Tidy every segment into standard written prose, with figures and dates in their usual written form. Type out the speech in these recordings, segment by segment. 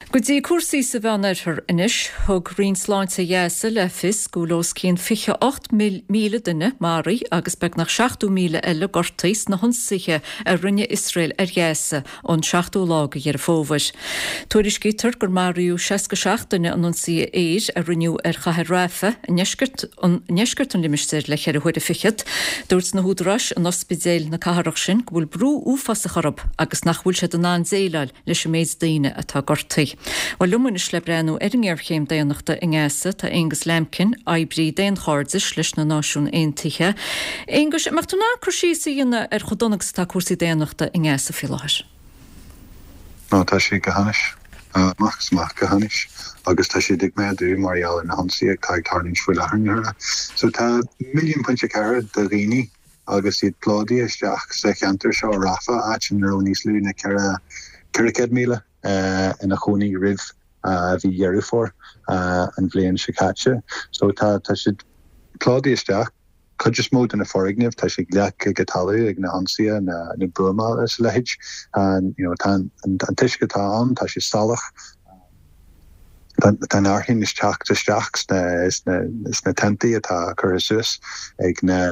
Go dtí cúrsaí sa Mheánoirthear anois. Thug Roinn Sláinte Ghaza le fios go bhfuil os cionn 28,000 duine maraithe agus beagnach 70,000 eile gortaithe sna hionsaithe a rinne Iosrael ar Ghaza ón seachtú lá de Dheireadh Fómhair. Tuairiscítear gur maraíodh 67 duine in ionsaithe aeir a rinneadh ar chathair Rafah i ndeisceart ndeisceart an limistéir le ceithre huaire fichead. Dúirt na húdaráis in ospidéil na cathrach sin go bhfuil brú uafásach orthu agus nach bhfuil siad in ann déileáil leis an méid daoine atá gortaithe. Bhuel, liom anois le breathnú ar an ngéarchéim daonnachta i nGaza tá Aonghus Lambkin, oibrí daonchairdis leis na Náisiúin Aontaithe. Aonghus, an mbeadh tú in ann cur síos a dhéanamh ar chomh dona agus atá cúrsaí daonnachta i nGaza faoi láthair? Ó, tá sé go hainnis. Amach is amach go hainnis. Agus tá siad ag méadú mar gheall ar na hionsaithe atá ag tarlúint faoi láthair na huaire. So tá 1.4 milliún de dhaoine agus iad plódaithe isteach sa cheantar seo, Rafah, áit ina raibh níos lú ná 400,000 ina chónaí roimh mhí Dheireadh Fómhair an bhliain seo caite. So tá tá siad plódaithe isteach. Cuid is mó de na foirgnimh, tá siad leagtha go talamh ag na hionsaithe, na na buamála is a leithéid. You know, tá an an t-uisce atá ann, tá sé salach. Tá an fhearthainn ag teacht isteach sna tentaí atá curtha suas ag na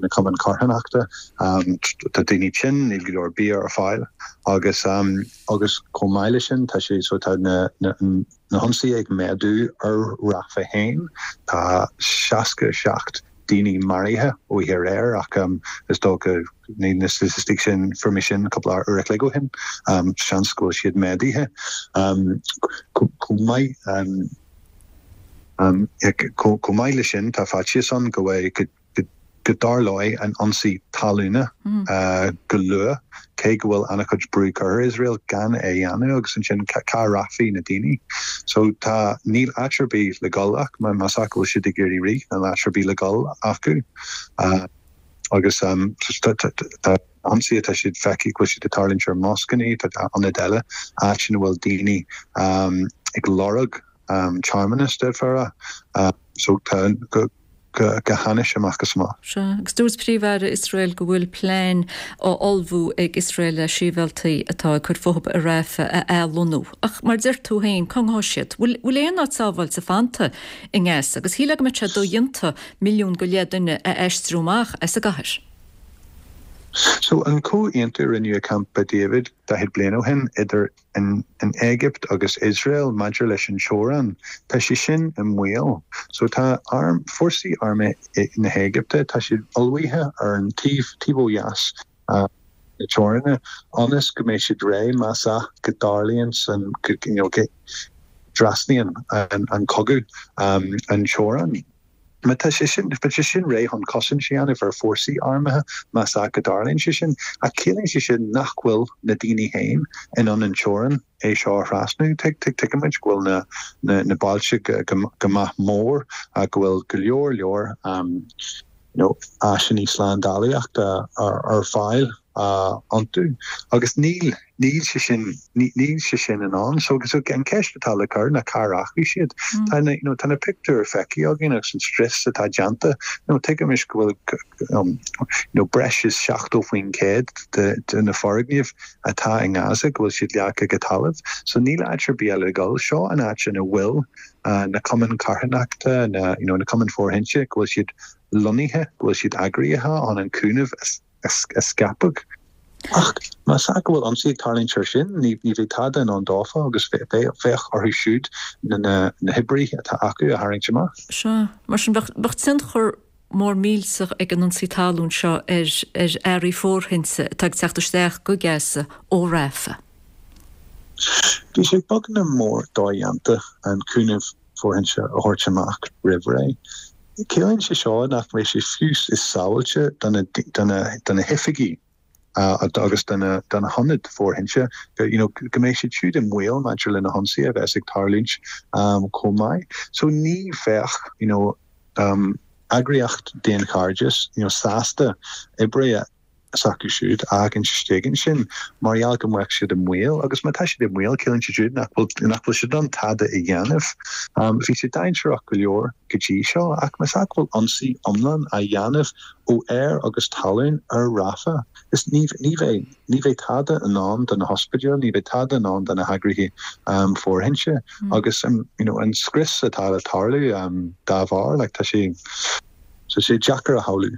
cumainn carthanachta. Tá daoine tinn, níl go leor bia ar fáil agus agus chomh maith leis sin tá sé so tá na hionsaithe ag méadú ar Rafah féin. Tá 67 daoine maraithe oíche aréir ach is dócha ní na staitisticí sin, fuair mé sin cúpla uair a chloig ó shin, seans go bhfuil siad méadaithe chomh maith. Chomh maith leis sin tá faitíos ann go bhfuil go dtarlóidh an ionsaí talúna go luath, cé go bhfuil an-chuid brú curtha ar Iosrael gan é a dhéanamh agus ansin cá rachaidh na daoine? So tá, níl áit ar bith le dhul ach más ea go bhfuil siad ag iarraidh rith, níl áit ar bith le dhul acu. Agus tá ionsaithe, tá siad feicthe go bhfuil siad ag tarlúint ar moscanna, tá ionaid eile, áit ina bhfuil daoine ag lorg tearmann, d'fhéadfá a rá. So tá go go hainnis amach is amach. Sea, agus dúirt Príomh-Aire Iosrael go bhfuil plean á ullmhú ag Iosrael le sibhialtaigh atá ag cur fúthu i Rafah a athlonnú. Ach mar a deir tú féin, cá ngabhfaidh siad? Bhfuil aon áit sábháilte fanta i nGaza? Agus shílfeá go mbeadh sé dodhéanta 1.5 milliún duine a aistriú amach as an gcathair. So, an comhaontú a rinneadh i Camp David 40 bliain ó shin idir an Éigipt agus Iosrael maidir leis an teorainn, tá sé sin i mbaol. So tá arm, fórsaí armtha na hÉigipte, tá siad ullmhaithe ar an taobh, taobh ó dheas na teoranna ionas go mbeidh siad réidh más ea go dtarlaíonn san, go, you know, go dtrasnaíonn an cogadh an teorainn. Má tá sé sin, tá sé sin réidh chun cosaint a dhéanamh ar fórsaí armtha más ea go dtarlaíonn sé sin, ach ciallaíonn sé sin nach bhfuil na daoine féin in ann an teorainn é seo a thrasnú. Tuigimid go bhfuil na, na, na bailte go, go maith mór, go bhfuil go leor leor you know, áiseanna slándálaíochta ar, ar fáil iontu agus níl, Níl sé sin, níl sé sin in ann. So, so an ceist atá le cur ná cá rachaidh siad? Tá na, you know, tá na pictiúir feicthe againn agus an scrios atá déanta. You know, tuigimis go bhfuil, you know, breis is 70% de, de na foirgnimh atá i nGaza go bhfuil siad leagtha go talamh. So níl áit ar bith eile le dhul. Seo an áit ina bhfuil na cumainn carthanachta, na, you know, na cumainn fóirithinte, go bhfuil siad lonnaithe, go bhfuil siad eagraithe chun an cúnamh a a scaipeadh. Ach más ea go bhfuil ionsaí ag tarlúint air sin, ní bheidh tada in ann dófa agus bheadh orthu siúd na hoibrithe atá acu a tharraingt amach. Sea. Mar sin, bheadh tionchar mór millteach ag an ionsaí talún seo ar earraí fóirithinte atá ag teacht isteach go Gaza ó Rafah. Bhí sé beagnach mór dodhéanta an cúnamh fóirithinte a thabhairt amach roimh ré. Ciallaíonn sé seo nach mbeidh sé fiú is sábháilte do na hoifigí agus do na hionaid fóirithinte, you know, go mbeidh siad siúd i mbaol maidir le na hionsaithe a bheas ag tarlúint chomh maith. So ní bheadh, you know, eagraíocht daonchairdis, you know, sásta oibrithe. S'acu siúd a fhágaint istigh ansin mar gheall go mbeadh siad i mbaol agus má tá siad i mbaol ciallaíonn sé siúd nach bhfuil nach bhfuil siad in ann tada a dhéanamh. Bhí sé dainséarach go leor go dtí seo ach más ea go bhfuil ionsaí iomlán á dhéanamh ó aer agus talún ar Rafah is ní ní bheidh ní bheidh tada i ndán do na hospidéil, ní bheidh tada i ndán do na heagraithe fóirithinte agus you know an scrios atá le tarlú dá bharr like tá sé tá sé deacair a shamhlú.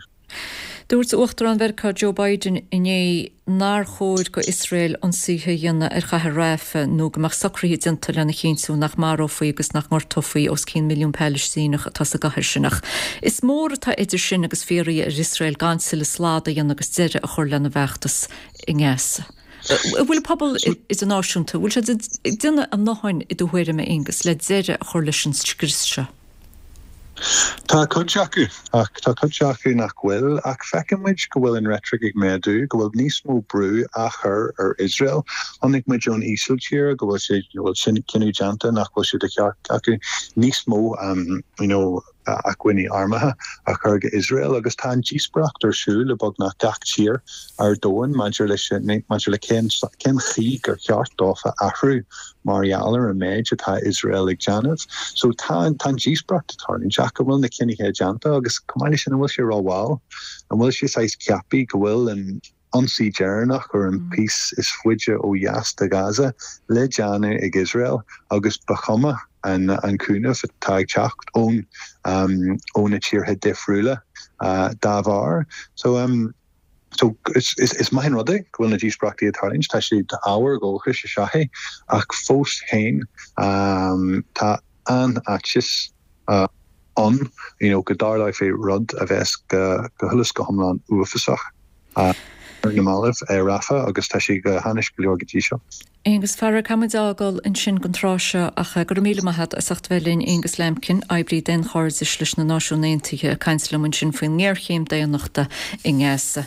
Dúirt Uachtarán Mheiriceá Joe Biden inné nár chóir go Iosrael ionsaithe a dhéanamh ar chathair Rafah nó go mbeadh socruithe déanta lena chinntiú nach marófaí agus nach ngortófaí os cionn milliún Palaistíneach atá sa gcathair sin. Ach is mór atá idir sin agus fiafraí ar Iosrael gan tuilleadh slad a dhéanamh agus deireadh a chur lena bhfeachtas i nGaza. An bhfuil an pobal idirnáisiúnta, an bhfuil siad ag déanamh a ndóthain i do thuairim, a Aonghus, le deireadh a chur leis an scrios seo? Tá cuid acu, ach tá cuid acu nach bhfuil. Ach feiceann muid go bhfuil an reitric ag méadú, go bhfuil níos mó brú á chur ar Iosrael. Chonaic muid ón Ísiltír go bhfuil sé, go bhfuil sin cinneadh déanta nach bhfuil sé de cheart acu níos mó you know acmhainní armtha a chur go Iosrael agus tá an díospóireacht ar siúl i beagnach gach tír ar domhan maidir leis, maidir le cén, cén chaoi gur cheart dófa athrú mar gheall ar an méid atá Iosrael ag déanamh. So tá tá an díospóireacht ag tarlúint ach an bhfuil na cinnithe déanta agus chomh maith leis sin an bhfuil sé rómhall? An bhfuil sé saghas ceaptha go bhfuil an ionsaí deireanach ar an píos is faide ó dheas de Ghaza le déanamh ag Iosrael agus ba chuma an an cúnamh atá ag teacht ón ó na tíortha difriúla dá bharr? So So, is maith an rud é go bhfuil na díospóireachtaí ag tarlúint, tá sé ábhar dóchais is ea é, ach fós féin tá an-fhaitíos ann you know go dtarlóidh rud a bheas go huile is go hiomlán uafásach ar na mallaibh i Rafah agus tá sé go hainnis go leor go dtí seo. Aonghus, a chara, caithfidh muid a fhágáil ansin don tráth seo ach go raibh míle maith agat as ucht a bheith linn, Aonghus Lambkin, oibrí daonchairdis leis na Náisiúin Aontaithe, ag caint liom ansin faoin ngéarchéim daonnachta i nGaza.